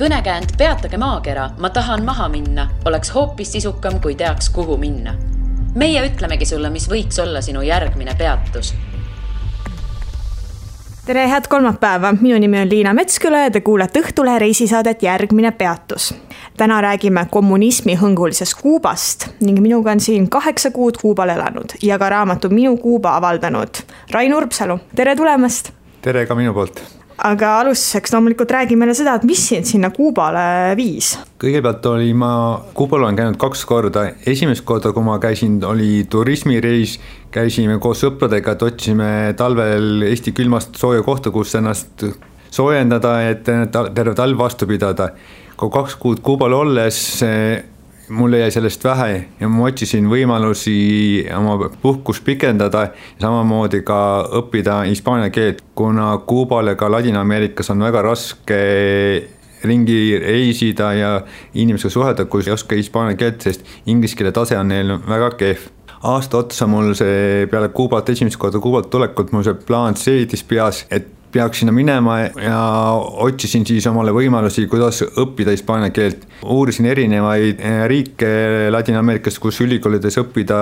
Kõnekäänd Peatage maakera, ma tahan maha minna, oleks hoopis sisukam, kui teaks, kuhu minna. Meie ütlemegi sulle, mis võiks olla sinu järgmine peatus. Tere, head kolmapäeva. Minu nimi on Liina Metsküla ja te kuulete Õhtulehe reisisaadet Järgmine peatus. Täna räägime kommunismi hõngulisest Kuubast ning minuga on siin 8 kuud Kuubal elanud ja ka raamatu Minu Kuuba avaldanud Rain Urbsalu. Tere tulemast! Tere ka minu poolt! Aga alustuseks loomulikult räägi meile seda, et mis sind sinna Kuubale viis? Kõigepealt Kuubal olen käinud 2 korda. Esimest korda, kui ma käisin, oli turismireis. Käisime koos sõpradega, et otsime talvel Eesti külmast sooja kohta, kus ennast soojendada, et terve talv vastu pidada. Kui 2 kuud Kuubal olles, mulle jäi sellest vähe ja ma otsisin võimalusi oma puhkust pikendada ja samamoodi ka õppida hispaania keelt, kuna Kuubal ja ka Ladina-Ameerikas on väga raske ringi reisida ja inimesega suhelda, kui ei oska hispaania keelt, sest inglise keele tase on neil väga kehv. Aasta otsa mul see peale Kuubalt, esimest korda Kuubalt tulekut, mul see plaan seedis peas, et peaks sinna minema ja otsisin siis omale võimalusi, kuidas õppida hispaania keelt. Uurisin erinevaid riike Ladina-Ameerikast, kus ülikoolides õppida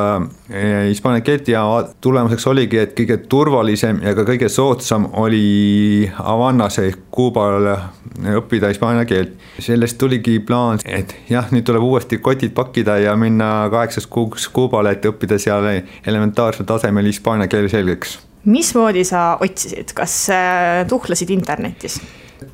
hispaania keelt ja tulemuseks oligi, et kõige turvalisem ja ka kõige soodsam oli Havannas ehk Kuubal õppida hispaania keelt. Sellest tuligi plaan, et jah, nüüd tuleb uuesti kotid pakkida ja minna 8 kuuks Kuubale, et õppida seal elementaarsel tasemel hispaania keele selgeks. Mismoodi sa otsisid? Kas tuhlasid internetis?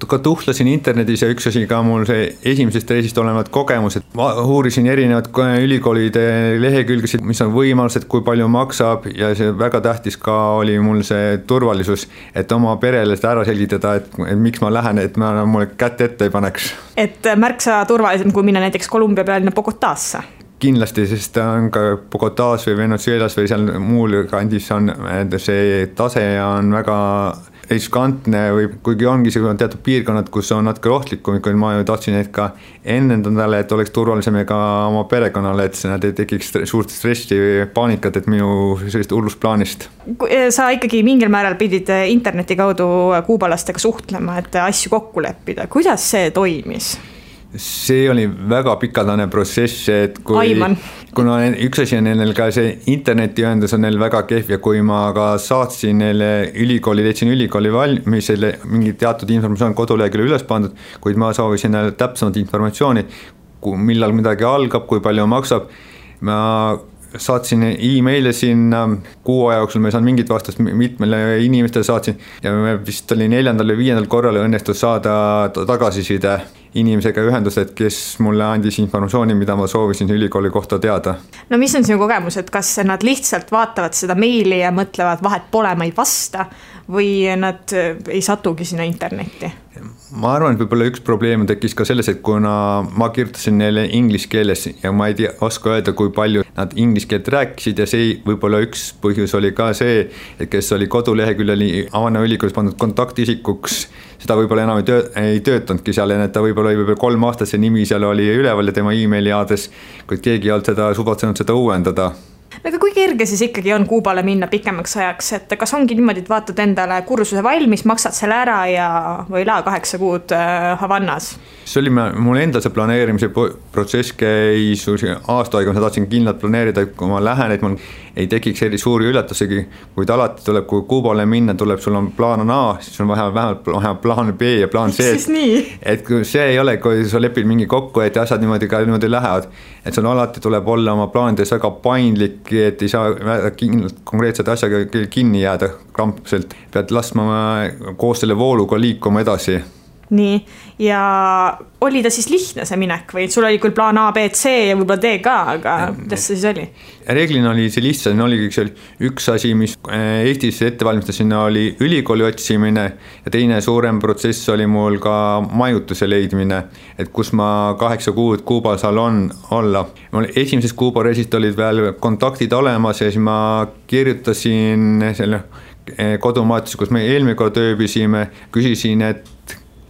Ka tuhlasin internetis ja üks asi ka mul see esimesest reisist olevad kogemused. Ma uurisin erinevad ülikoolide lehekülgesid, mis on võimalused, kui palju maksab ja see väga tähtis ka oli mul see turvalisus, et oma perele seda ära selgitada, et miks ma lähen, et ma mulle kätt ette ei paneks. Et märksa turvalisem, kui minna näiteks Kolumbia pealinna Bogotasse? Kindlasti, sest on ka Bogotas või Venezuelas või seal muul kandis on see tase on väga riskantne või kuigi ongi see teatud piirkonnad, kus on natuke rohtlikum, kui ma ju tahtsin neid ka ennendale, et oleks turvalisem ka oma perekonnale, et nad ei tekiks suurt stressi või paanikat, et minu sellist hullusplaanist. Sa ikkagi mingil määral pidid interneti kaudu kuubalastega suhtlema, et asju kokku leppida. Kuidas see toimis? See oli väga pikaldane protsess, et kuna üks asi on neil ka see internetiühendus on neil väga kehv ja kui ma ka saatsin neile leidsin ülikooli valmis, mingi teatud informatsioon koduleheküljel üles pandud, kuid ma soovisin neile täpsemat informatsiooni, millal midagi algab, kui palju maksab. Ma saatsin e-maile sinna 6 aja jooksul, ma ei saanud mingit vastust, mitmele inimestele saatsin ja vist oli 4. või 5. korral õnnestus saada tagasiside inimesega ühendused, kes mulle andis informatsiooni, mida ma soovisin ülikooli kohta teada. No mis on sinu kogemus, et kas nad lihtsalt vaatavad seda meili ja mõtlevad vahet pole, ma ei vasta või nad ei satugi sinna internetti? Ma arvan, et võib-olla üks probleem tekkis ka selles, et kuna ma kirjutasin neile inglise keeles ja ma ei oska öelda, kui palju nad inglise keelt rääkisid ja see võib-olla üks põhjus oli ka see, et kes oli koduleheküljel Havana ülikoolis pandud kontaktisikuks, seda võib-olla enam ei töötanudki seal, et ta võib-olla 3 aastat see nimi seal oli üleval ja tema e-maili aadres, kuid keegi ei olnud seda suvatsenud seda uuendada. Aga kui kerge siis ikkagi on Kuubale minna pikemaks ajaks, et kas ongi niimoodi, et vaatad endale kursuse valmis, maksad selle ära ja või 8 kuud Havannas? See oli mul enda see planeerimise protsess käis aasta aega, ma tahtsin kindlalt planeerida, kui ma lähen, et mul ei tekiks eri suuri üllatusegi, kuid alati tuleb, kui Kuubale minna, tuleb sul on plaan A, siis on vähemalt plaan B ja plaan C. Et kui see ei ole, kui sa lepid mingi kokku, et asjad niimoodi lähevad, et sul alati tuleb olla oma plaanides väga paindlik, et ei saa konkreetset asjaga kinni jääda krampselt, pead laskma koos selle vooluga liikuma edasi. Nii, ja oli ta siis lihtne see minek või sul oli küll plaan A, B, C ja võib-olla D ka, aga kuidas see siis oli? Reeglina oli see lihtsalt, oli üks asi, mis Eestis ettevalmistasin, oli ülikooli otsimine ja teine suurem protsess oli mul ka majutuse leidmine, et kus ma 8 kuud Kuubal saal olla. Mul esimeses Kuuba reisist olid veel kontaktid olemas ja siis ma kirjutasin selle kodumaatis, kus me eelmine kord ööbisime, küsisin, et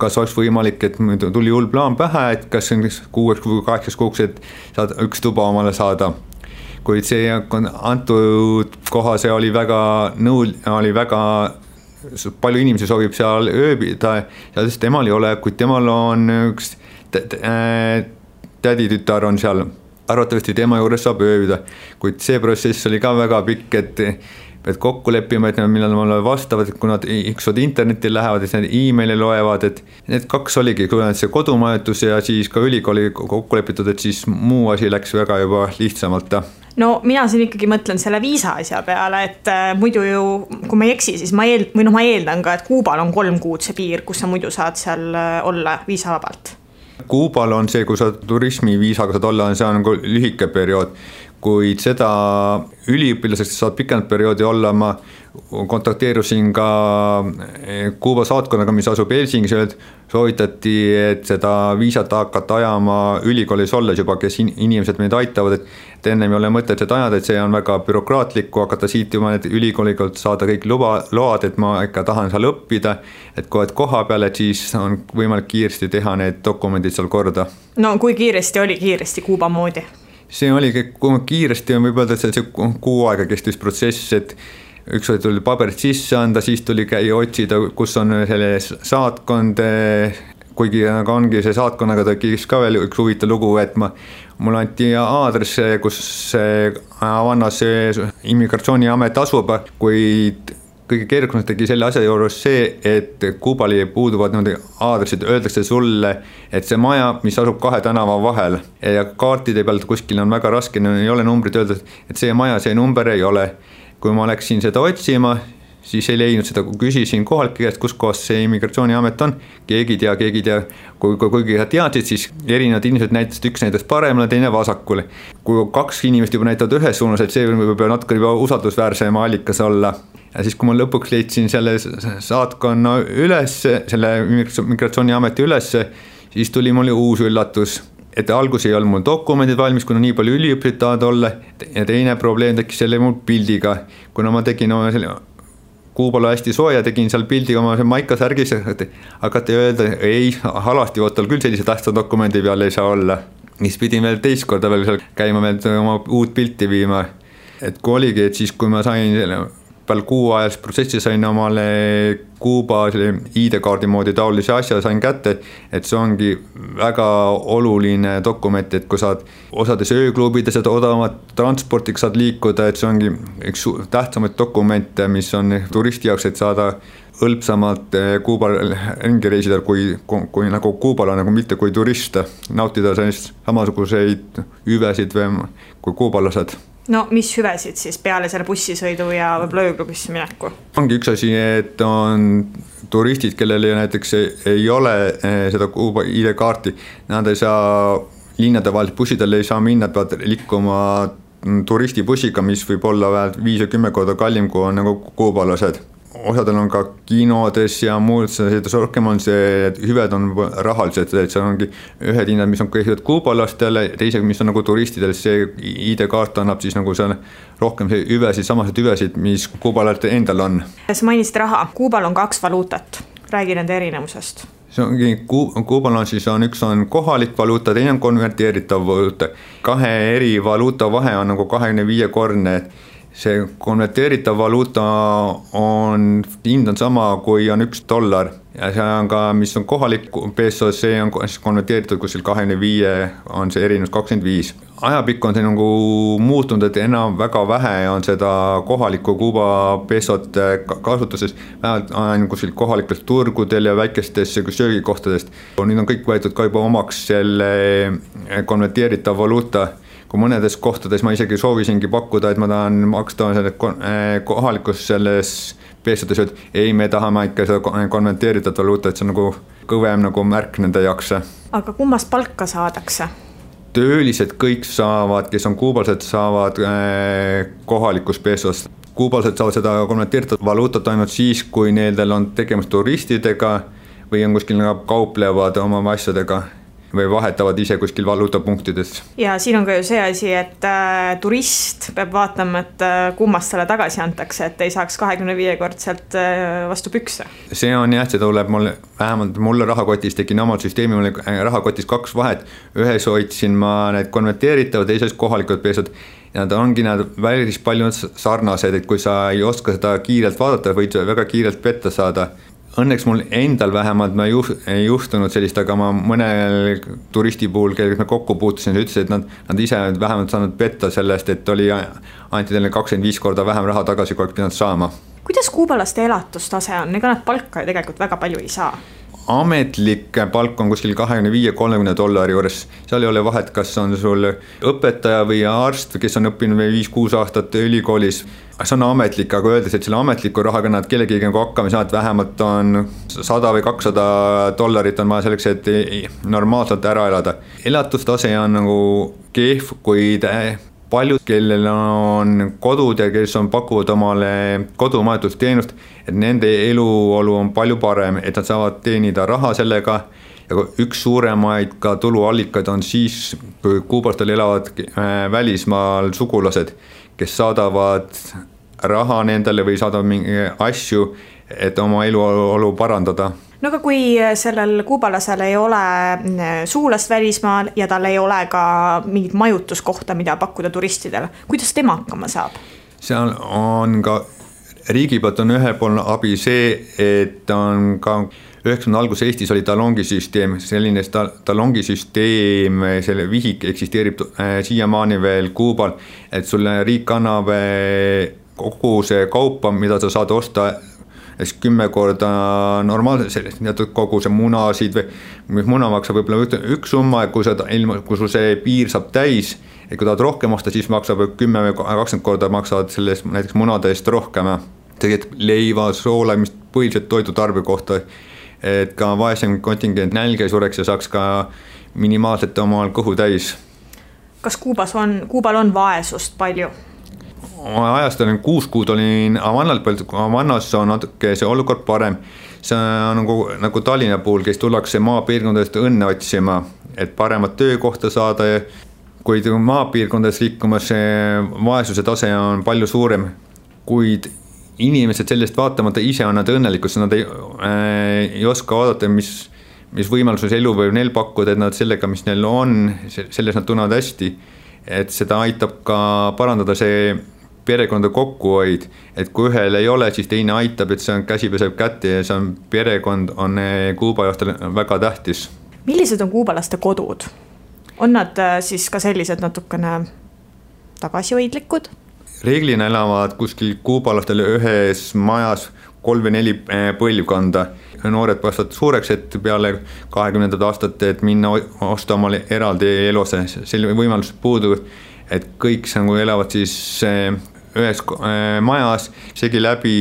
kas oleks võimalik, et tuli hull plaan pähe, et kas 6 või 8 kuuks, et saad üks tuba omale saada. Kuid see antud koha, see oli väga palju inimesi soovib seal ööbida ja sest temal ei ole, kuid temal on üks täditütar on seal, arvatavasti tema juures saab ööbida, kuid see protsess oli ka väga pikk, et kokku leppima, et millal mulle vastavad, et kui nad ükskord internetti lähevad, et nad emaili loevad, et need kaks oligi, kui see kodumajutus ja siis ka ülikooli kokku lepitud, et siis muu asi läks väga juba lihtsamalt. No mina siin ikkagi mõtlen selle viisa asja peale, et muidu ju, kui ma ei eksi, siis ma eeldan ka, et Kuubal on 3 kuud see piir, kus sa muidu saad seal olla viisavabalt. Kuubal on see, kui sa turismiviisaga saad olla, see on nagu lühike periood, kuid seda üliõpilaseks saad pikend perioodi olla, ma kontakteerusin ka Kuuba saatkonnaga, mis asub Helsingis, soovitati, et seda viisat hakata ajama ülikoolis olles juba, kes inimesed meid aitavad, et enne ei ole mõtet seda ajada, et see on väga bürokraatlik, kui hakata siit juba ülikooliga saada kõik load, et ma ikka tahan seal õppida, et kui oled koha peal, et siis on võimalik kiiresti teha need dokumendid seal korda. No kui kiiresti oli Kuuba moodi? See oligi kiiresti, võib öelda, et see 6 aega kestis protsess, et ükskord tuli paberid sisse anda, siis tuli käia otsida, kus on selle saatkond, kuigi ongi see saatkonnaga tekkis ka veel üks huvitav lugu, et mul anti aadress, kus Havannas immigratsiooniamet asub, kuid kõige keerukamaks tegi selle asja juures see, et Kuubali puuduvad aadressid, öeldakse sulle, et see maja, mis asub 2 tänava vahel ja kaartide pealt kuskil on väga raske, ei ole numbrit öelda, et see maja, see number ei ole. Kui ma läksin seda otsima, siis ei leidnud seda, kui küsisin kohalike käest, kus kohas see immigratsiooniamet on, keegi ei tea, kuigi teadsid, siis erinevad inimesed näitasid, üks näitas paremale, teine vasakule. Kui 2 inimest juba näitavad ühes suunas, et see võib natuke juba usaldusväärsem allikas olla. Ja siis, kui ma lõpuks leidsin selle saatkonna üles, selle immigratsiooniameti üles, siis tuli mulle uus üllatus, et algus ei olnud mul dokumendid valmis, kuna nii palju üliõpilased tahavad olla, ja teine probleem tekkis selle mul pildiga, kuna ma tegin Kuubal hästi sooja, tegin seal pildi oma maikasärgis, hakati öelda, ei, halasti võttal küll sellise tähtsa dokumendi peal ei saa olla. Mis pidin veel teist korda veel seal käima, veel oma uut pilti viima. Et kui oligi, et siis kui ma sain peal 6 ajas protsessi sain omale Kuuba ID-kaardi moodi taolise asja sain kätte, et see ongi väga oluline dokument, et kui saad osades ööklubides odavamat transportiga saad liikuda, et see ongi üks tähtsamaid dokumente, mis on turisti jaoks, et saada hõlpsamalt Kuubal ringi reisida, kui nagu Kuubal on, nagu mitte kui turist, nautida sellist samasuguseid hüvesid kui kuubalased. No mis hüvesid siis peale selle bussisõidu ja võib-olla ööklubisse mineku? Ongi üks asi, et on turistid, kellel näiteks ei ole seda Kuuba ID-kaarti, nad ei saa linnade vahel, bussidel ei saa minna, peavad liikuma turistibussiga, mis võib olla vähemalt 5 või 10 korda kallim, kui on nagu kuubalased. Osadel on ka kinodes ja muud, rohkem on see, et hüved on rahalised, et see ongi ühed hinnad, mis on kõigepealt kuubalastele, teisega, mis on nagu turistidel, see ID-kaart annab siis nagu seal rohkem hüvesid, samased hüvesid, mis kuubalatel endal on. Sa mainisid raha, Kuubal on 2 valuutat, räägi nende erinevusest. See ongi, Kuubal on siis üks on kohalik valuuta, teine on konverteeritav valuuta. 2 eri valuuta vahe on nagu 25-korne, see konverteeritav valuuta hind on sama, kui on $1 ja see on ka, mis on kohalik peso, see on konverteeritud kuskil 25, on see erinevus 25. Ajapikku on see nagu muutunud, et enam väga vähe on seda kohalikku Kuuba pesot kasutuses, vähemalt kuskil kohalikelt turgudel ja väikestes söögikohtadest. Nüüd on kõik võetud ka juba omaks selle konverteeritav valuuta. Kui mõnedes kohtades ma isegi soovisingi pakkuda, et ma tahan maksta kohalikus selles peesodes, et ei, me tahame ikka seda konverteeritud valuuta, et see on nagu kõvem nagu märk nende jaoks. Aga kummast palka saadakse? Töölised kõik saavad, kes on kuubalased, saavad kohalikus peesos. Kuubalased saavad seda konverteeritud valuutat ainult siis, kui neil on tegemist turistidega või on kuskil kauplevad oma asjadega või vahetavad ise kuskil valuutapunktides. Ja siin on ka ju see asi, et turist peab vaatama, et kummast selle tagasi antakse, et ei saaks 25-kordselt vastu pükse. See on jah, see tuleb vähemalt mulle rahakotis, tegin omalt süsteemi, mulle rahakotis 2 vahet. Ühes hoidsin ma need konverteeritavad, teises kohalikud peesod. ja nad ongi päris palju sarnased, et kui sa ei oska seda kiirelt vaadata, võid väga kiirelt petta saada. Õnneks mul endal vähemalt ei juhtunud sellist, aga ma mõnel turisti puhul, kellega me kokku puutusin, ütles, et nad ise vähemalt saanud petta sellest, et anti teile 25 korda vähem raha tagasi, kui oleks pidanud saama. Kuidas kuubalaste elatustase on? Ega nad palka ju tegelikult väga palju ei saa. Ametlik palk on kuskil $25-30 juures, seal ei ole vahet, kas on sul õpetaja või arst, kes on õppinud 5-6 aastat ülikoolis. See on ametlik, aga öeldes, et selle ametliku rahaga nad kellegi hakkama saavad, vähemalt on $100 või $200 on vaja selleks, et normaalselt ära elada. Elatustase on nagu kehv, kuid paljud, kellel on kodud ja kes pakuvad omale kodumajutusteenust, et nende eluolu on palju parem, et nad saavad teenida raha sellega. Ja üks suuremaid ka tuluallikaid on siis, kui kuubalastel elavad välismaal sugulased, kes saadavad raha nendele või saadavad mingi asju, et oma eluolu parandada. No aga kui sellel kuubalasel ei ole sugulast välismaal ja tal ei ole ka mingit majutuskohta, mida pakkuda turistidele, kuidas tema hakkama saab? Seal on ka riigi poolt on ühepoolne abi see, et on ka 90 alguses Eestis oli talongisüsteem, selline talongisüsteem, selle vihik eksisteerib siiamaani veel Kuubal, et sulle riik annab kogu see kaupa, mida sa saad osta 10 korda normaalselt, teatud kogu see munasid või muna maksab võib-olla üks summa, kui sul see piir saab täis, et kui tahad rohkem osta, siis maksab 10 või 20 korda maksavad sellest näiteks munade eest rohkem. Tegelikult leiva, soola, mis põhiliselt toidutarbe kohta, et ka vaesem kontingent nälge sureks ja saaks ka minimaalselt omal kõhu täis. Kas Kuubal on vaesust palju? Ajast olin 6 kuud olin Havannas on natuke see olukord parem. See on nagu Tallinna puhul, kes tullakse maapiirkondadest õnne otsima, et paremat töökohta saada. Kuid maapiirkondades liikumas vaesuse tase on palju suurem, kuid inimesed sellest vaatamata ise on nad õnnelikud, sest nad ei oska vaadata, mis võimaluses elu võib neil pakkuda, et nad sellega, mis neil on, selles nad tunnevad hästi. Et seda aitab ka parandada see perekonda kokkuhoid, et kui ühel ei ole, siis teine aitab, et see on käsi peseb kätte ja see on perekond on Kuuba jaostel väga tähtis. Millised on kuubalaste kodud? On nad siis ka sellised natukene tagasihoidlikud? Reeglina elavad kuskil kuubalastel ühes majas 3 või 4 põlvkonda. Noored kasvavad suureks, et peale 20. aastate, et minna osta omale eraldi eluse. Selle võimalus puudub, et kõik elavad siis ühes majas, segi läbi,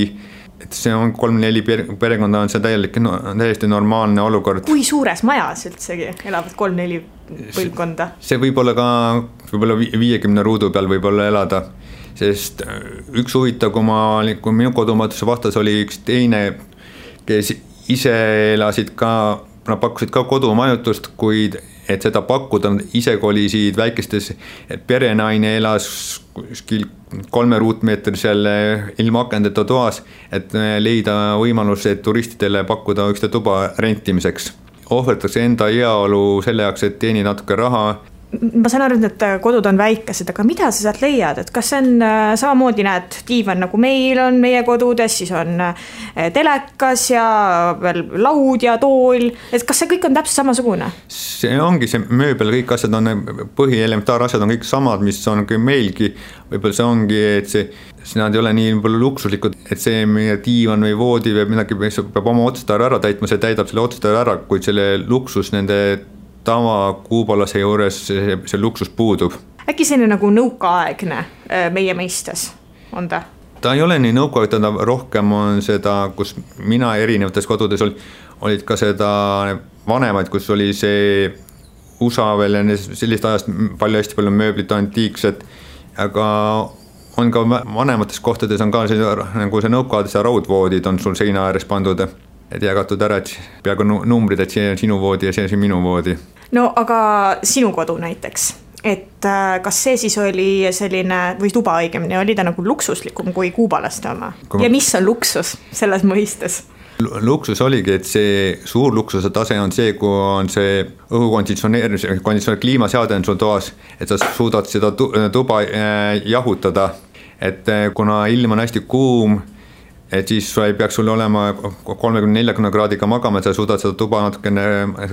et see on 3-4 perekonda on see täiesti normaalne olukord. Kui suures majas üldsegi elavad 3-4 põlvkonda? See võib olla ka 50 ruudu peal võib-olla elada, sest üks huvitav, kui minu kodumaatuse vastas oli üks teine, kes ise elasid ka, nad pakkusid ka kodumajutust, kuid et seda pakkuda, nad ise kolisid väikestes, et perenaine elas kuskil 3 ruutmeetrisel ilma akendeta toas, et leida võimalus, et turistidele pakkuda üks tuba rentimiseks. Ohverdatakse enda heaolu selle jaoks, et teeni natuke raha. Ma saan aru, et need kodud on väikesed, aga mida sa sealt leiad? Et kas see on samamoodi näed diivan nagu meil on meie kodudes, siis on telekas ja veel laud ja tool, et kas see kõik on täpselt samasugune? See ongi see mööbel, kõik asjad on põhielementaarasjad on kõik samad, mis on meilgi, võib-olla see ongi, et nad ei ole nii luksuslikud, et see meie diivan või voodi või midagi peab oma otstarve ära täitma, see täidab selle otstarve ära, kuid selle luksus nende tava kuubalase juures see luksus puudub. Äkki selline nagu nõukaaegne meie meistes on ta? Ta ei ole nii nõukaaegne, rohkem on seda, kus mina erinevates kodudes olid ka seda vanemaid, kus oli see USA veel ja sellist ajast hästi palju mööblit antiikset, aga on ka vanemates kohtades on ka nagu see nõukaades ja raudvoodid on sul seina ääres pandud, et jagatud ära, et peaaegu numbrid, et see on sinu voodi ja see on minu voodi. No aga sinu kodu näiteks, et kas see siis oli selline, või tuba õigemini, oli ta nagu luksuslikum kui kuubalaste oma? Ja mis on luksus selles mõistes? luksus oligi, et see suur luksuse tase on see, kui on see õhukonditsioneerimise, kliimaseade on sul toas, et sa suudad seda tuba jahutada, et kuna ilm on hästi kuum, et siis ei peaks sul olema 30-40 kraadiga magama, et sa suudad seda tuba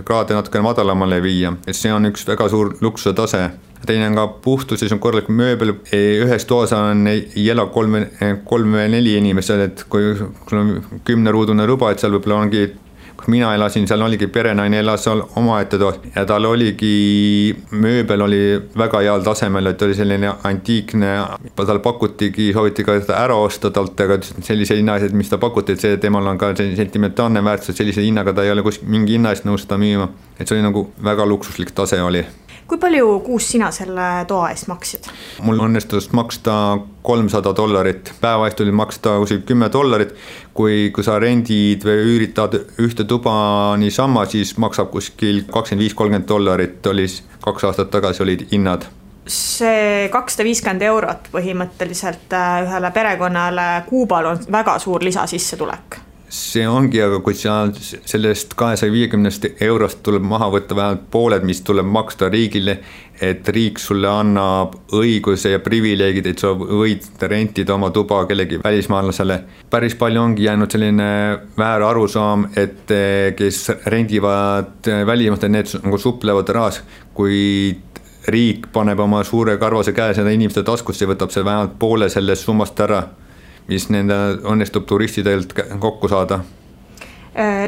kraade natukene madalamale viia, et see on üks väga suur luksuse tase. Teine on ka puhtus, siis on korralik mööbel, ühes toas ei ela 3-4 inimesed, et kui sul on 10-ruudune ruba, et seal võib-olla ongi, kui mina elasin, seal oligi perenaine elas seal omaette toas ja tal oligi, mööbel oli väga heal tasemel, et oli selline antiikne, tal pakutigi, sooviti ka seda ära osta talt, aga sellise hinna, et mis ta pakuti, et see temal on ka sentimentaalne väärtus, et sellise hinnaga ta ei ole mingi hinna eest nõus seda müüma, et see oli nagu väga luksuslik tase oli. Kui palju kuus sina selle toa eest maksid? Mul õnnestus maksta $300, päeva eest oli maksta $10, kui sa rendid või üüritad ühte tuba niisama, siis maksab kuskil $25-30, oli 2 aastat tagasi olid hinnad. See €250 põhimõtteliselt ühele perekonnale Kuubal on väga suur lisasissetulek. See ongi, aga kui sellest €250 tuleb maha võtta vähemalt pooled, mis tuleb maksta riigile, et riik sulle annab õiguse ja privileegid, et sa võid rentida oma tuba kellegi välismaalasele. Päris palju ongi jäänud selline väär arusaam, et kes rendivad välismaalt, need nagu suplevad rahas, kui riik paneb oma suure karvase käe seda inimeste taskusse ja võtab see vähemalt poole sellest summast ära, mis nende õnnestub turistidelt kokku saada.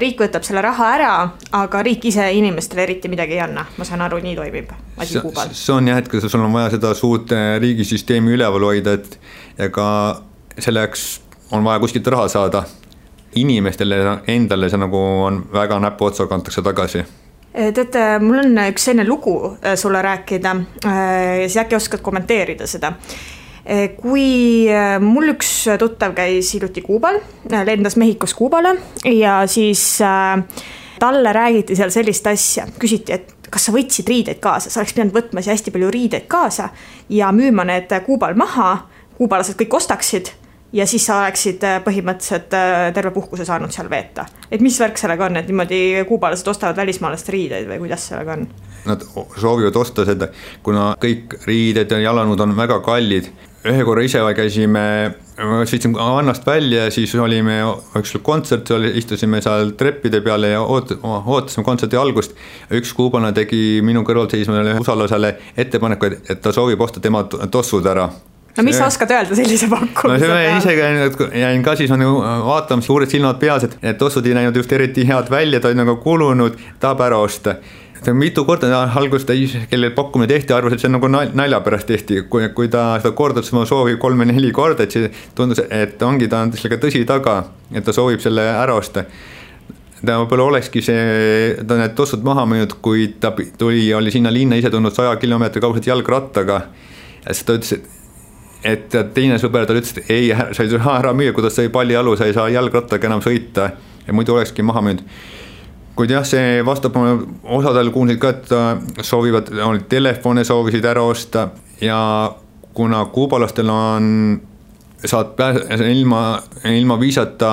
Riik võtab selle raha ära, aga riik ise inimestele eriti midagi ei anna. Ma saan aru, nii toimib asi Kuubal. See on jah, et kui sul on vaja seda suurt riigisüsteemi üleval hoida, et ega selleks on vaja kuskilt raha saada. Inimestele endale see nagu on väga näpu otsa kantakse tagasi. Tead, mul on üks selline lugu sulle rääkida ja siis äkki oskad kommenteerida seda. Kui mul üks tuttav käis hiljuti Kuubal, lendas Mehhikos Kuubale ja siis talle räägiti seal sellist asja, küsiti, et kas sa võtsid riideid kaasa, sa oleks pidanud võtma hästi palju riideid kaasa ja müüma need Kuubal maha, kuubalased kõik ostaksid ja siis sa oleksid põhimõtteliselt terve puhkuse saanud seal veeta. Et mis värk sellega on, et niimoodi kuubalased ostavad välismaalast riideid või kuidas sellega on? Nad soovivad osta seda, kuna kõik riided ja jalanõud on väga kallid. Ühe korra ise käisime, sõitsime annast välja ja siis olime üks kontsert, istusime seal treppide peale ja ootasime kontserti algust. Üks kuubane tegi minu kõrval seismale usalasele ettepaneku, et ta soovib osta tema tossud ära. No mis sa oskad öelda sellise pakkumise peale? No ise jäin ka siis vaatama suured silmad peas, et tossud ei näinud just eriti head välja, ta on nagu kulunud, tahab ära osta. Mitu korda algust, kellel pakkumine tehti, arvas, et see on nagu nalja pärast tehti, kui ta seda kordas oma soovi 3-4 korda, et see tundus, et ongi ta on sellega tõsi taga, et ta soovib selle ära osta. Ta võib-olla olekski ta need tossud maha müünud, kui ta oli sinna linna ise tulnud 100 kilomeetri kauguselt jalgrattaga ja siis ta ütles, et teine sõber tal ütles, et ei, sa ei saa ära müüa, kuidas sa ei pallialu, sa ei saa jalgrattaga enam sõita ja muidu olekski maha müünud. Kuid jah, see vastab osadel kuulsid ka, et soovivad, telefone soovisid ära osta ja kuna kuubalastel saad ilma viisata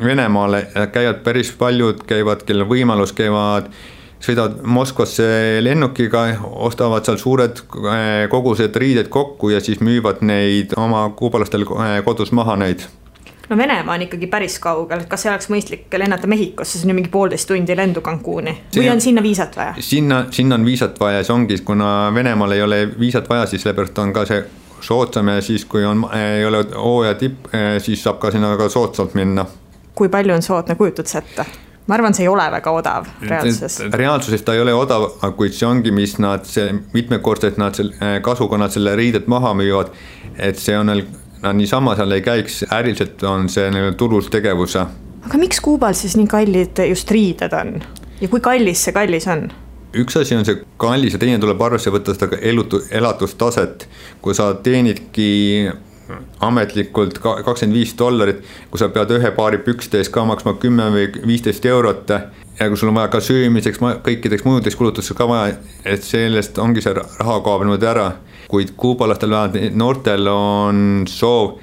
Venemaale, käivad päris paljud, kellel võimalus sõidavad Moskvasse lennukiga, ostavad seal suured kogused riided kokku ja siis müüvad neid oma kuubalastel kodus maha neid. No Venemaa on ikkagi päris kaugel, kas see oleks mõistlik lennata Mehhikosse, see on mingi 1,5 tundi lendu Cancuni või on sinna viisat vaja? Sinna on viisat vaja, see ongi, kuna Venemaal ei ole viisat vaja, siis sellepärast on ka see soodsam ja siis kui ei ole hooaja tipp, siis saab ka sinna väga soodsalt minna. Kui palju on soodne, kujutad sa ette? Ma arvan, see ei ole väga odav reaalsuses. Reaalsuses ta ei ole odav, kuid see ongi, mis mitmekordselt kasuga nad selle riidet maha müüvad, et see on niisama seal ei käiks, äriliselt on see tulus tegevuse. Aga miks Kuubal siis nii kallid just riided on? Ja kui kallis see kallis on? Üks asi on see kallis ja teine tuleb arvesse võtta seda elatustaset. Kui sa teenidki ametlikult $25, kui sa pead ühe paari pükstes ka maksma 10 või 15 eurot ja kui sul on vaja ka söömiseks, kõikideks mujudeks kulutusteks ka vaja, et sellest ongi see raha kaob niimoodi ära. Kuid kuubalastel vähemalt noortel on soov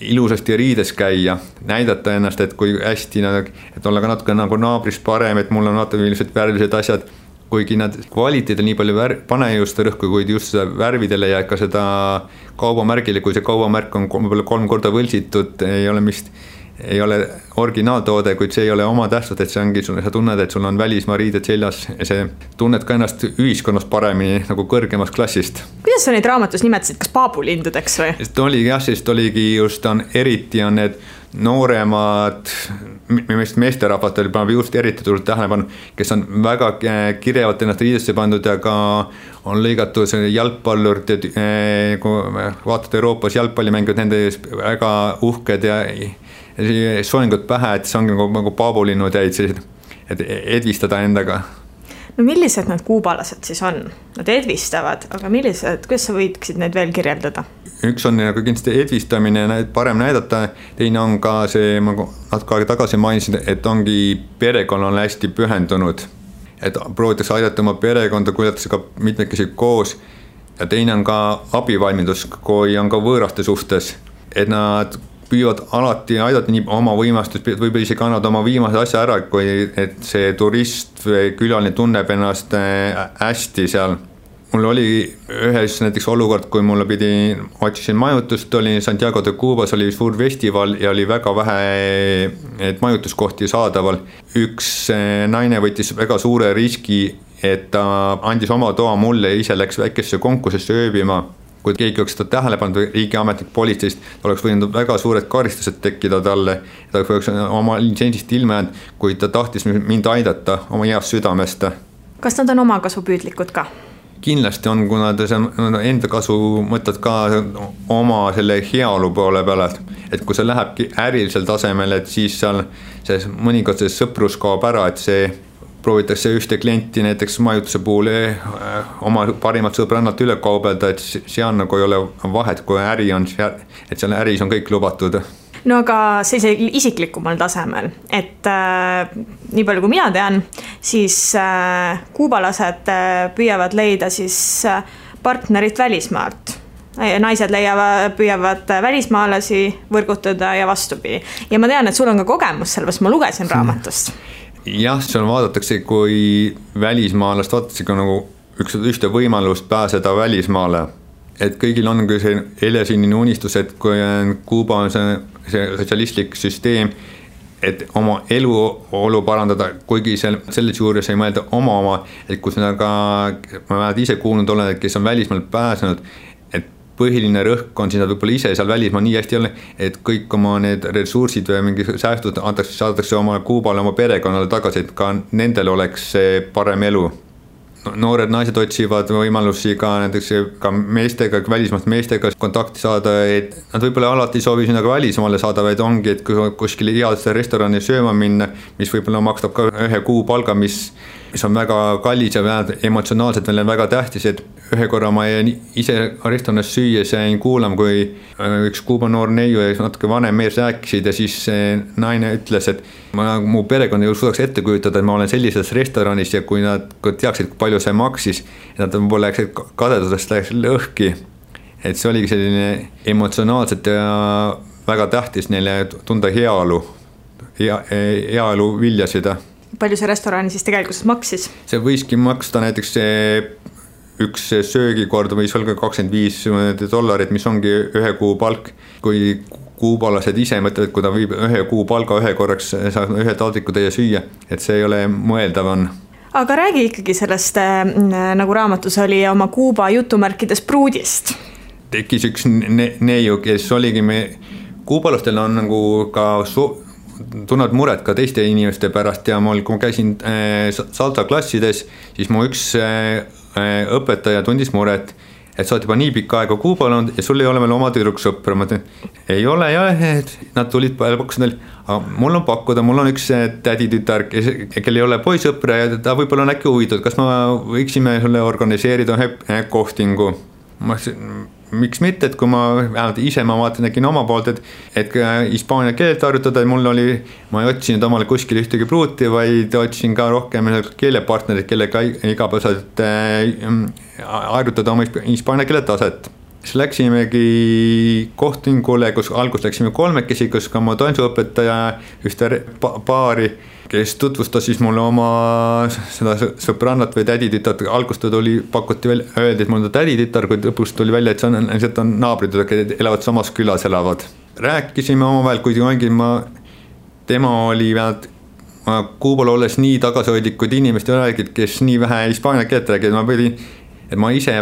ilusasti riides käia, näidata ennast, et kui hästi, et olla ka natuke nagu naabrist parem, et mul on natuke ilmselt värvilised asjad, kuigi nad kvaliteedil nii palju pane just rõhku, kuid just seda värvidele ja ka seda kaubamärgile, kui see kaubamärk on 3 korda võltsitud, ei ole originaaltoode, kuid see ei ole oma tähtsust, et see ongi, sa tunned, et sul on välismaa riided seljas ja see tunned ka ennast ühiskonnas paremini nagu kõrgemast klassist. Kuidas sa neid raamatus nimetasid, kas paabulindudeks või? Sest oligi just, eriti on need nooremad, meesterahvad oli just eriti tulnud tähelepanu, kes on väga kirjavalt ennast riidesse pandud ja ka on lõigatud jalgpallurid, kui vaatad Euroopas jalgpallimängud, nende väga uhked ja soengud pähe, et see ongi nagu paabulinnud jäid sellised, et edvistada endaga. No millised need kuubalased siis on? Nad edvistavad, aga millised, kuidas sa võiksid neid veel kirjeldada? Üks on nagu kindlasti edvistamine, parem näidata, teine on ka see, ma natuke aega tagasi mainisin, et ongi perekonnal hästi pühendunud. Et proovitakse aidata oma perekonda, kuljatakse ka mitmekesi koos ja teine on ka abivalmidus, kui on ka võõraste suhtes, et nad püüavad alati aidata nii oma võimastust, võib-olla isegi annavad oma viimase asja ära, kui et see turist või külaline tunneb ennast hästi seal. Mul oli ühes näiteks olukord, kui mulle otsisin majutust, oli Santiago de Cubas, oli suur festival ja oli väga vähe majutuskohti saadaval. Üks naine võttis väga suure riski, et ta andis oma toa mulle ja ise läks väikesse konkursisse ööbima. Kui keegi oleks seda tähelepanu riigiametlik politseist, oleks võinud väga suured karistused tekkida talle, ta oleks oma litsensist ilma jäänud, kui ta tahtis mind aidata oma heast südamest. Kas nad on omakasupüüdlikud ka? Kindlasti on, kuna enda kasu mõtled ka oma selle heaolu poole peale, et kui see lähebki ärilisel tasemel, et siis seal mõnikord see sõprus kaob ära, et see proovitakse ühte klienti näiteks majutuse puhul oma parimat sõbrannalt üle kaubelda, et seal nagu ei ole vahet, kui äri on, et seal äris on kõik lubatud. No aga sellise isiklikumal tasemel, et nii palju kui mina tean, siis kuubalased püüavad leida siis partnerit välismaalt. Naised püüavad välismaalasi võrgutada ja vastupidi. Ja ma tean, et sul on ka kogemus sellepärast, ma lugesin raamatust. Jah, seal vaadatakse, kui välismaalast vaadatakse ka nagu ühte võimalust pääseda välismaale. Et kõigil on see helesinnine unistus, et kui Kuuba on see sotsialistlik süsteem, et oma eluolu parandada, kuigi selles juures ei mõelda oma, et kus ma ise kuulnud olen, et kes on välismaal pääsenud, et põhiline rõhk on siis nad võib-olla ise seal välismaa nii hästi ei ole, et kõik oma need ressursid või mingi säästud saadatakse oma Kuubale, oma perekonnale tagasi, et ka nendel oleks see parem elu. Noored naised otsivad võimalusi ka näiteks ka meestega, välismaast meestega kontakti saada, et nad võib-olla alati soovi sinna ka välismaale saada, vaid ongi, et kuskil headesse restorani sööma minna, mis võib-olla makstab ka 1 kuu palga, mis on väga kallis ja emotsionaalselt veel väga tähtis, et ühe korra ma ise restoranis süües jäin kuulama, kui üks Kuuba noor neiu ja natuke vanem mees rääkisid ja siis naine ütles, et mu perekond ei suudaks ette kujutada, et ma olen sellises restoranis ja kui nad teaksid, kui palju see maksis, nad võib-olla läksid kadedusest lõhki. Et see oligi selline emotsionaalselt ja väga tähtis neile tunda heaolu viljasid. Palju see restorani siis tegelikult maksis? See võiski maksta näiteks üks söögikord võis olla $25, mis ongi 1 kuu palk, kui kuubalased ise mõtlevad, kui ta viib 1 kuu palga 1 korraks, saab 1 taldriku täie süüa, et see ei ole mõeldav on. Aga räägi ikkagi sellest, nagu raamatus oli, oma Kuuba jutumärkides pruudist. Tekkis üks neiu, kes oligi kuubalastel on nagu ka tunned muret ka teiste inimeste pärast ja kui ma käisin salsa klassides, siis mu üks õpetaja tundis muret, et sa oled juba nii pikka aega Kuubal olnud ja sul ei ole veel oma tüdruksõpra. Ma ütlen, ei ole jah, et nad tulid pakkusid, aga mul on pakkuda, mul on üks täditütar, kel ei ole poisõpra ja ta võib-olla on äkki huvitatud, kas ma võiksime sulle organiseerida kohtingu. Miks mitte, et kui ma ise nägin oma poolt, et hispaania keelt harjutada, ma ei otsinud omale kuskil ühtegi pruuti, vaid otsin ka rohkem keelepartnerid, kellega igapäevaselt harjutada oma hispaania keele taset. siis läksimegi kohtingule, kus alguses läksime kolmekesi, kus ka mu tantsuõpetaja ühte paari, kes tutvustas siis mulle oma seda sõbrannat või täditütart. Algust pakuti välja, öeldi, et mul on täditütar, kui lõpus tuli välja, et see on naabrid, kes elavad samas külas elavad. Rääkisime omavahel, kuigi tema oli vähemalt Kuubal olles nii tagasihoidlikud inimesed räägid, kes nii vähe hispaania keelt räägid, et ma ise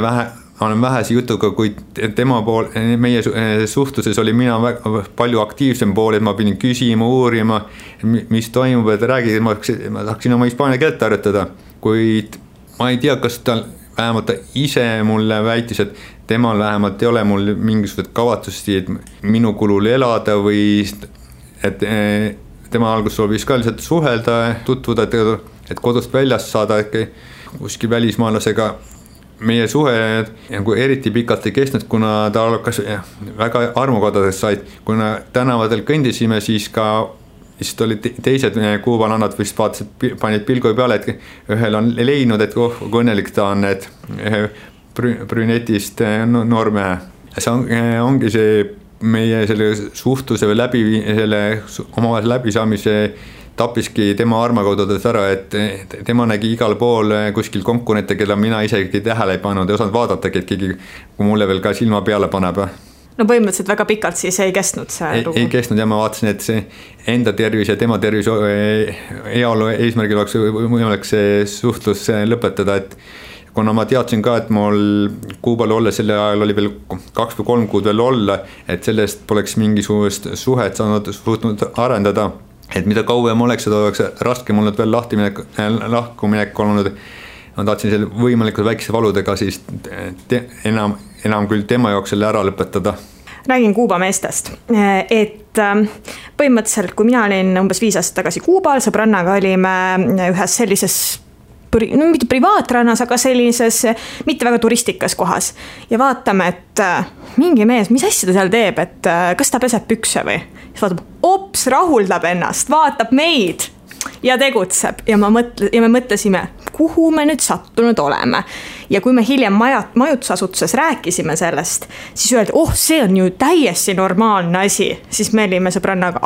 olen vähese jutuga, kuid tema pool, meie suhtluses oli mina väga palju aktiivsem pool, et ma pidin küsima, uurima, mis toimub, et räägid, ma tahaksin oma hispaania keelt harjutada, kuid ma ei tea, kas ta vähemalt ta ise mulle väitis, et temal vähemalt ei ole mul mingisugused kavatsusi, et minu kulul elada või et tema alguses soovis ka lihtsalt suhelda, tutvuda, et kodust väljast saada kuskil välismaalasega. Meie suhe eriti pikalt ei kestnud, kuna ta hakkas väga armukodades said, kuna tänavatel kõndisime, siis olid teised kuubalannad vist vaatasid, panid pilgu peale, et ühel on leidnud, et kui õnnelik ta on, et brünetist noormehe. See ongi see meie selle suhtluse või omavahel läbisaamise tappiski tema armakodudes ära, et tema nägi igal pool kuskil konkurente, keda mina isegi tähele ei pannud, ei osanud vaadatagi, et keegi kui mulle veel ka silma peale paneb. No põhimõtteliselt väga pikalt siis ei kestnud see lugu? Ei kestnud ja ma vaatasin, et see enda tervis ja tema tervis heaolu eesmärgil oleks võimalik see suhtlus lõpetada, et kuna ma teadsin ka, et mul Kuubal olla selle ajal oli veel 2 või 3 kuud veel olla, et sellest poleks mingisugust suhet suutnud arendada. Et mida kauem oleks, seda oleks raske mul veel lahkuminek olnud. Ma tahtsin selle võimalikult väikese valudega siis enam küll tema jaoks selle ära lõpetada. Räägin Kuuba meestest, et põhimõtteliselt kui mina olin umbes 5 aastat tagasi Kuubal, sõbrannaga olime ühes sellises mitte privaatrannas, aga sellises mitte väga turistikas kohas ja vaatame, et mingi mees, mis asja ta seal teeb, et kas ta peseb pükse või? Siis vaatab, ops, rahuldab ennast, vaatab meid ja tegutseb ja me mõtlesime, kuhu me nüüd sattunud oleme. Ja kui me hiljem majutusasutuses rääkisime sellest, siis öeldi, see on ju täiesti normaalne asi, siis me olime sõbrannaga,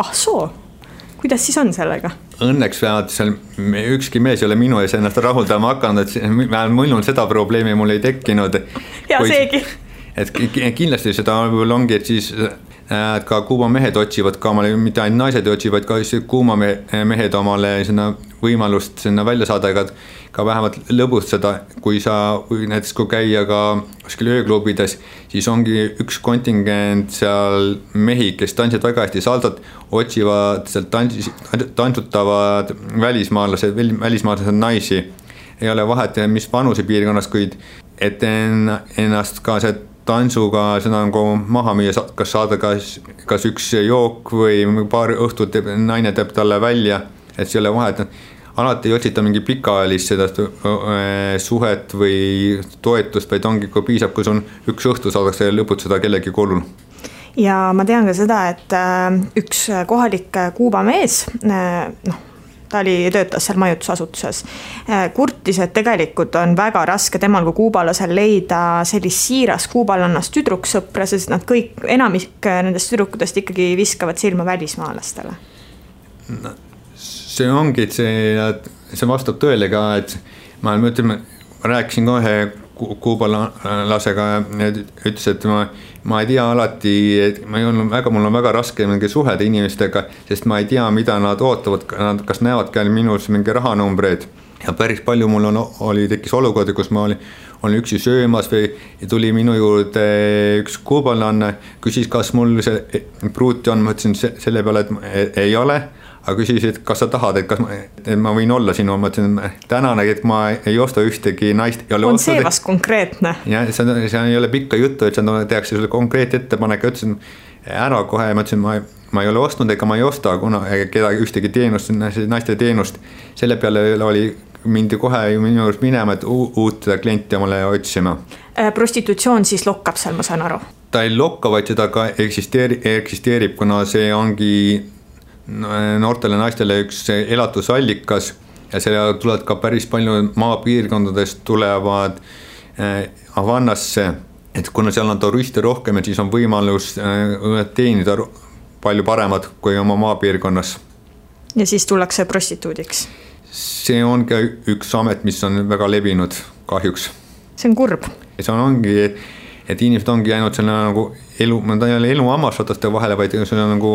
kuidas siis on sellega? Õnneks vähemalt seal ükski mees ei ole minu ees ennast rahuldama hakanud, et mul seda probleemi mul ei tekkinud. Ja seegi. Et kindlasti seda ongi, et siis ka Kuuba mehed otsivad ka omale, mitte ainult naised otsivad, ka Kuuba mehed omale võimalust sinna välja saada, ka vähemalt lõbustada, kui näiteks kui käia ka kuskil ööklubides, siis ongi üks kontingent seal mehi, kes tantsivad väga hästi saldot, otsivad seal tantsutavad välismaalased naisi. Ei ole vahet, mis vanuse piirkonnas, kuid et ennast ka see tantsuga seda maha müüa, kas saada kas üks jook või paar õhtut naine teeb talle välja, et see ei ole vahet. Alati ei otsita mingi pikaajalist seda suhet või toetust, vaid ongi, kui piisab, kui on üks õhtu saadakse lõputada kellegi kolul. Ja ma tean ka seda, et üks kohalik Kuuba mees, ta töötas seal majutusasutuses, kurtis, et tegelikult on väga raske temal kui kuubalasel leida sellist siiras kuubalannast tüdruksõpra, sest nad kõik, enamik nendest tüdrukutest ikkagi viskavad silma välismaalastele. See ongi, et see vastab tõele ka, et ma rääkisin ka ühe kuubalasega ja ütles, et ma ei tea alati, et mul on väga raske suhelda inimestega, sest ma ei tea, mida nad ootavad, kas näevad ka minus mingi rahanumbreid. Ja päris palju mul tekkis olukordi, kus ma olin üksi söömas või tuli minu juurde üks kuubalanne, küsis, kas mul see pruuti on, ma ütlesin selle peale, et ei ole. Aga küsisid, kas sa tahad, et ma võin olla sinu, ma ütlesin, tänane, et ma ei osta ühtegi naist. On see vast konkreetne? Ja, see ei ole pikka juttu, et tehakse sulle konkreet ettepanek, ütlesin ära kohe, ma ütlesin, ma ei ole ostnud ega ma ei osta kedagi ühtegi teenust, naiste teenust. Selle peale mindi kohe minu juures minema, et uut klienti mulle otsima. Prostitutsioon siis lokkab seal, ma saan aru? Ta ei lokka, vaid seda ka eksisteerib, kuna see ongi noortele naistele üks elatusallikas ja selle tulevad ka päris palju maapiirkondadest tulevad Havannasse et kuna seal on turiste rohkem, et siis on võimalus teenida palju paremad kui oma maapiirkonnas. Ja siis tullakse prostituudiks? See on ka üks amet, mis on väga levinud kahjuks. See on kurb. See ongi, et inimesed ongi ainult selle nagu elu hammasrataste vahele, vaid see nagu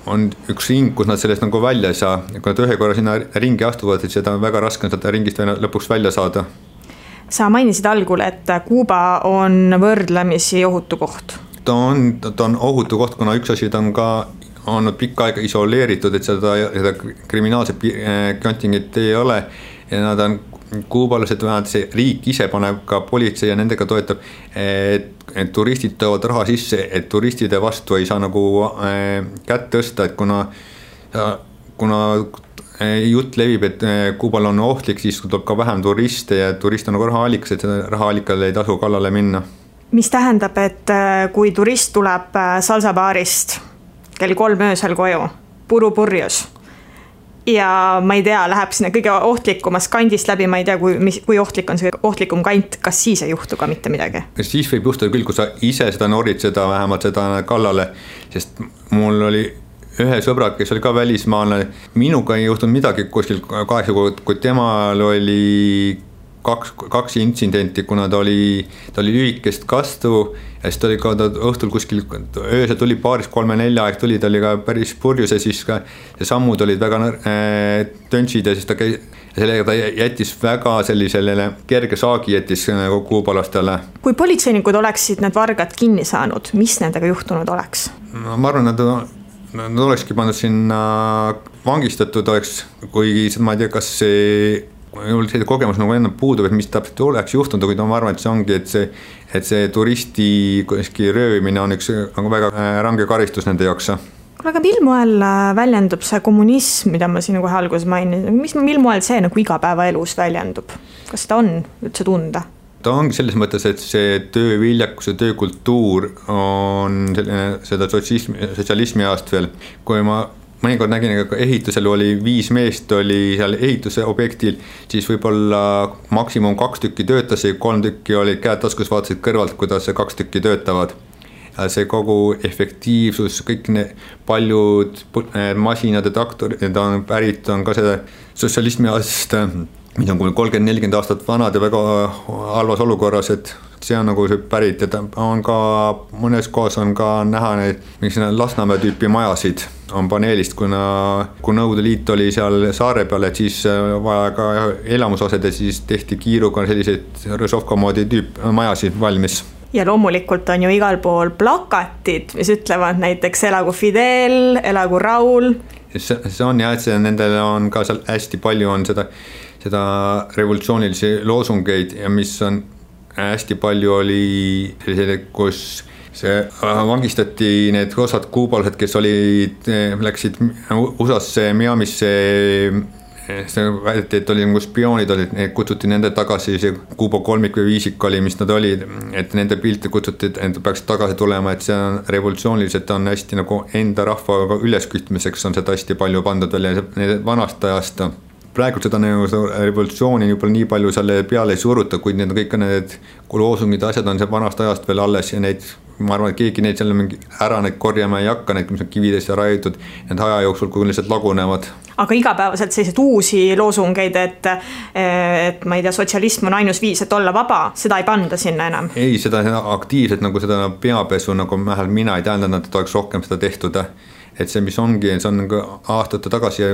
on üks ring, kus nad sellest nagu välja ei saa. Kui nad ühe korra sinna ringi astuvad, et seda on väga raske seda ringist lõpuks välja saada. Sa mainisid algul, et Kuuba on võrdlemisi ohutu koht. Ta on ohutu koht, kuna üks asi ta on ka olnud pikka aega isoleeritud, et seda kriminaalset kontingenti ei ole ja nad on kuubalased, see riik ise paneb ka politsei ja nendega toetab, et turistid toovad raha sisse, et turistide vastu ei saa nagu kätt tõsta, et kuna jutt levib, et Kuubal on ohtlik, siis tuleb ka vähem turiste ja turist on nagu rahaallikas, et seda rahaallikale ei tasu kallale minna. Mis tähendab, et kui turist tuleb salsabaarist kell 3 öösel koju, purjus ja ma ei tea, läheb sinna kõige ohtlikumas kandist läbi, ma ei tea, kui ohtlik on see ohtlikum kant, kas siis ei juhtu ka mitte midagi? Siis võib juhtuda küll, kui sa ise seda norid seda vähemalt seda kallale, sest mul oli ühe sõbra, kes oli ka välismaalane, minuga ei juhtunud midagi kuskil 8 kuud, kui temal oli kaks intsidenti, kuna ta oli lühikest kastu ja siis ta oli ka õhtul kuskil, öösel tuli 2-3-4 aeg tuli, ta oli ka päris purjus ja siis ka sammud olid väga töntsid ja siis sellega ta jättis väga sellisele kerge saagi jättis kuubalastele. Kui politseinikud oleksid need vargad kinni saanud, mis nendega juhtunud oleks? No, ma arvan, nad olekski pandud sinna vangistatud oleks, kuigi ma ei tea, kas see kogemus nagu enne puudub, et mis täpselt oleks juhtunud, kuid ma arvan, et see ongi, et see turisti röövimine on üks nagu väga range karistus nende jaoks. Aga mil moel väljendub see kommunism, mida ma siin kohe alguses mainin, mil moel see nagu igapäevaelus väljendub? Kas seda on üldse tunda? Ta ongi selles mõttes, et see tööviljakus ja töökultuur on seda sotsialismi ajast veel, kui ma mõnikord nägin, et ehitusel oli 5 meest oli seal ehituse objektil, siis võib-olla maksimum 2 tükki töötas ja 3 tükki oli käed taskus, vaatasid kõrvalt, kuidas 2 tükki töötavad. Ja see kogu efektiivsus, kõik paljud masinad ja traktorid on pärit, on ka seda sotsialismi ajast, mis on 30-40 aastat vanad ja väga halvas olukorras, et see on nagu see pärit, et on ka mõnes kohas on ka näha neid, miks Lasnamäe tüüpi majasid on paneelist, kui Nõukogude Liit oli seal saare peal, et siis vaja ka elamusosed ja siis tehti kiiruga selliseid Rõžovka moodi majasid valmis. Ja loomulikult on ju igal pool plakatid, mis ütlevad näiteks elagu Fidel, elagu Raul. See on jah, et nendel on ka seal hästi palju on seda revolutsioonilisi loosungeid ja mis on hästi palju oli sellised, kus see vangistati need osad kuubalased, kes läksid USA-sse, Miamisse, väideti, et oli nagu spioonid olid, need kutsuti nende tagasi, see Kuuba kolmik või viisik oli, mis nad olid, et nende pilte kutsuti, et peaks tagasi tulema, et see on revolutsiooniliselt on hästi nagu enda rahva üleskütmiseks on seda hästi palju pandud veel ja vanast ajast. Praegu seda revolutsiooni juba nii palju selle peale ei suruta, kuid need kõik need loosungid asjad on see vanast ajast veel alles ja neid, ma arvan, et keegi neid selle ära neid korjama ei hakka, need, mis on kividesse raiutud, need aja jooksul, kui lihtsalt lagunevad. Aga igapäevaselt sellised uusi loosungeid, et ma ei tea, sotsialism on ainus viis, et olla vaba, seda ei panda sinna enam? Ei, seda aktiivselt nagu seda peapesu, nagu mina ei tähendanud, et oleks rohkem seda tehtud. Et see, mis ongi, see on nagu aastate tagasi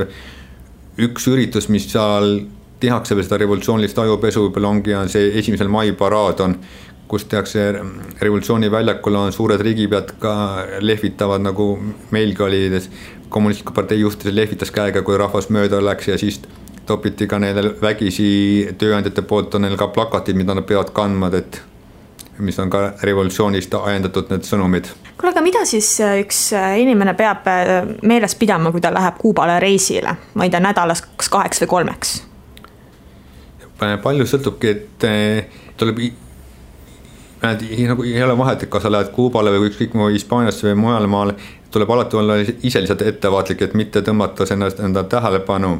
üks üritus, mis seal tehakse veel seda revolutsioonilist ajupesu, võib-olla ongi see 1. mai paraad on, kus tehakse revolutsiooni väljakul on suured riigipead ka lehvitavad, nagu meilgi oli, kommunistliku partei juhtis lehvitas käega, kui rahvas mööda läks ja siis topiti ka neile vägisi tööandjate poolt on neil ka plakatid, mida nad peavad kandma, et mis on ka revolutsioonist ajendatud need sõnumid. Kuule, aga mida siis üks inimene peab meeles pidama, kui ta läheb Kuubale reisile? Ma ei tea, nädalas 2 või 3? Palju sõltubki, et tuleb nagu ei ole vahet, et kas sa lähed Kuubale või ükskõik Hispaaniasse või mujale maale, tuleb alati olla ise lihtsalt ettevaatlik, et mitte tõmmata enda tähelepanu.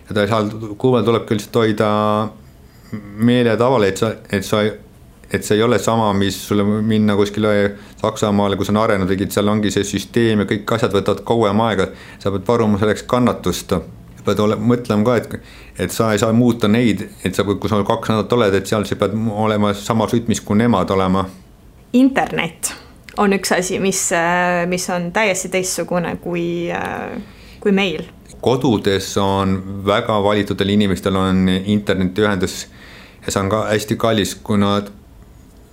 Ja Kuubal tuleb küll hoida meele tavale, et sa et see ei ole sama, mis sulle minna kuskile Saksamaale, kus on arenenud riigid, seal ongi see süsteem ja kõik asjad võtavad kauem aega, sa pead varuma selleks kannatust. Pead mõtlema ka, et sa ei saa muuta neid, et sa, kui sa 2 nädalat oled, et seal sa pead olema samas rütmis kui nemad olema. Internet on üks asi, mis on täiesti teistsugune kui meil. Kodudes on väga valitudel inimestel on internetiühendus ja see on ka hästi kallis, kuna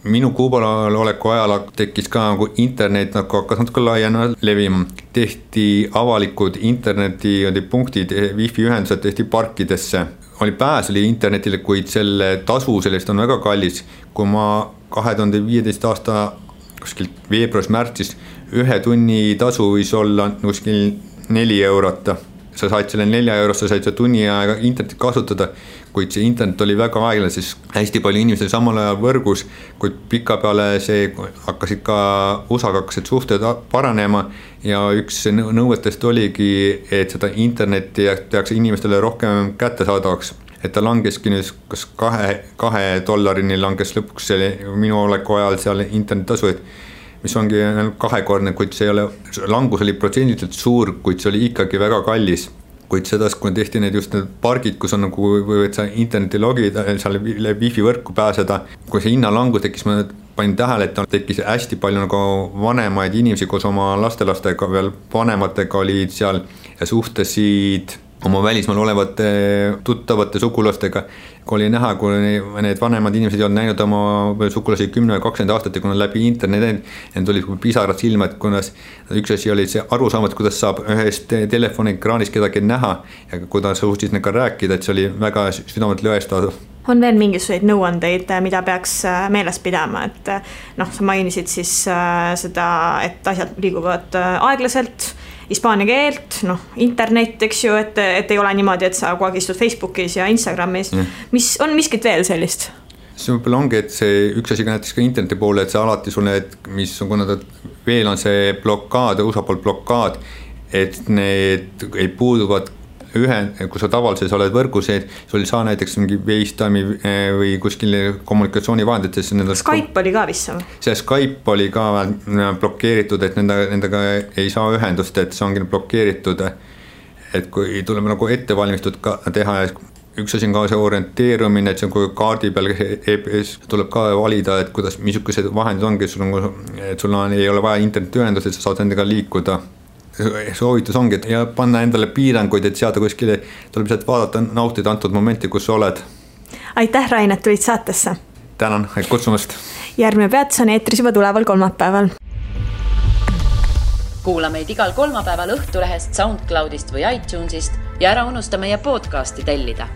minu Kuubal oleku ajal tekkis ka nagu internet nagu hakkas natuke laiena levima. Tehti avalikud internetipunktid, wifi ühendused tehti parkidesse. Oli pääs oli internetile, kuid selle tasu sellest on väga kallis. Kui ma 2015 aasta kuskil veebruaris-märtsis 1 tunni tasu võis olla kuskil 4 eurot. Sa said selle 4 eurost, sa said selle tunni aega internetit kasutada, kuid see internet oli väga aeglane, siis hästi palju inimesi samal ajal võrgus, kuid pika peale see hakkasid ka USA-ga hakkasid suhted paranema ja üks nõuetest oligi, et seda internetti tehakse inimestele rohkem kättesaadavaks. Et ta langeski nüüd kas $2 langes lõpuks minu oleku ajal seal internetasu, mis ongi 2-kordne, kuid see ei ole, langus oli protsendiliselt suur, kuid see oli ikkagi väga kallis. Kuid sedas, kui tehti need just need pargid, kus on nagu võid sa interneti logida, seal wifi võrku pääseda. Kui see hinnalangus tekkis, ma panin tähele, et tekkis hästi palju nagu vanemaid inimesi koos oma lastelastega, veel vanematega olid seal ja suhtesid oma välismaal olevate tuttavate sugulastega. Kui oli näha, kui need vanemad inimesed ei olnud näinud oma sugulasi 10 või 20 aastat ja kui nad läbi internet, need olid pisarad silmad, kunas üks asi oli see arusaamat, kuidas saab ühest telefonikraanis kedagi näha ja kuidas suhtis nendega rääkida, et see oli väga südamet lõestav. On veel mingisuguseid nõuandeid, mida peaks meeles pidama, et sa mainisid siis seda, et asjad liiguvad aeglaselt, hispaania keelt, internet, eks ju, et ei ole niimoodi, et sa kogu aeg istud Facebookis ja Instagramis. Mis on miskit veel sellist? See võib-olla ongi, et see üks asi ka näiteks ka interneti poole, et see alati sul need, mis on, kuna veel on see blokaad, USA poolt blokaad, et need ei puuduvad kui sa tavalises oled võrguseid, sul ei saa näiteks mingi FaceTime'i või kuskil kommunikatsioonivahendites. Skype oli ka vist? See Skype oli ka blokeeritud, et nendega ei saa ühendust, et see ongi blokeeritud. Et kui tuleb nagu ettevalmistud ka teha, üks asi on ka see orienteerumine, et see on kui kaardi peal EPS tuleb ka valida, et kuidas, missugused vahendid ongi, et sul ei ole vaja internetiühendust, et sa saad nendega liikuda. Soovitus ongi, et ja panna endale piiranguid, et seada kuskile, tuleb lihtsalt vaadata, nautida antud momenti, kus sa oled. Aitäh, Rain, et tulid saatesse. Tänan, kutsumast. Järgmine peatus on eetris juba tuleval kolmapäeval. Kuula meid igal kolmapäeval Õhtulehest, SoundCloudist või iTunesist ja ära unusta meie podcasti tellida.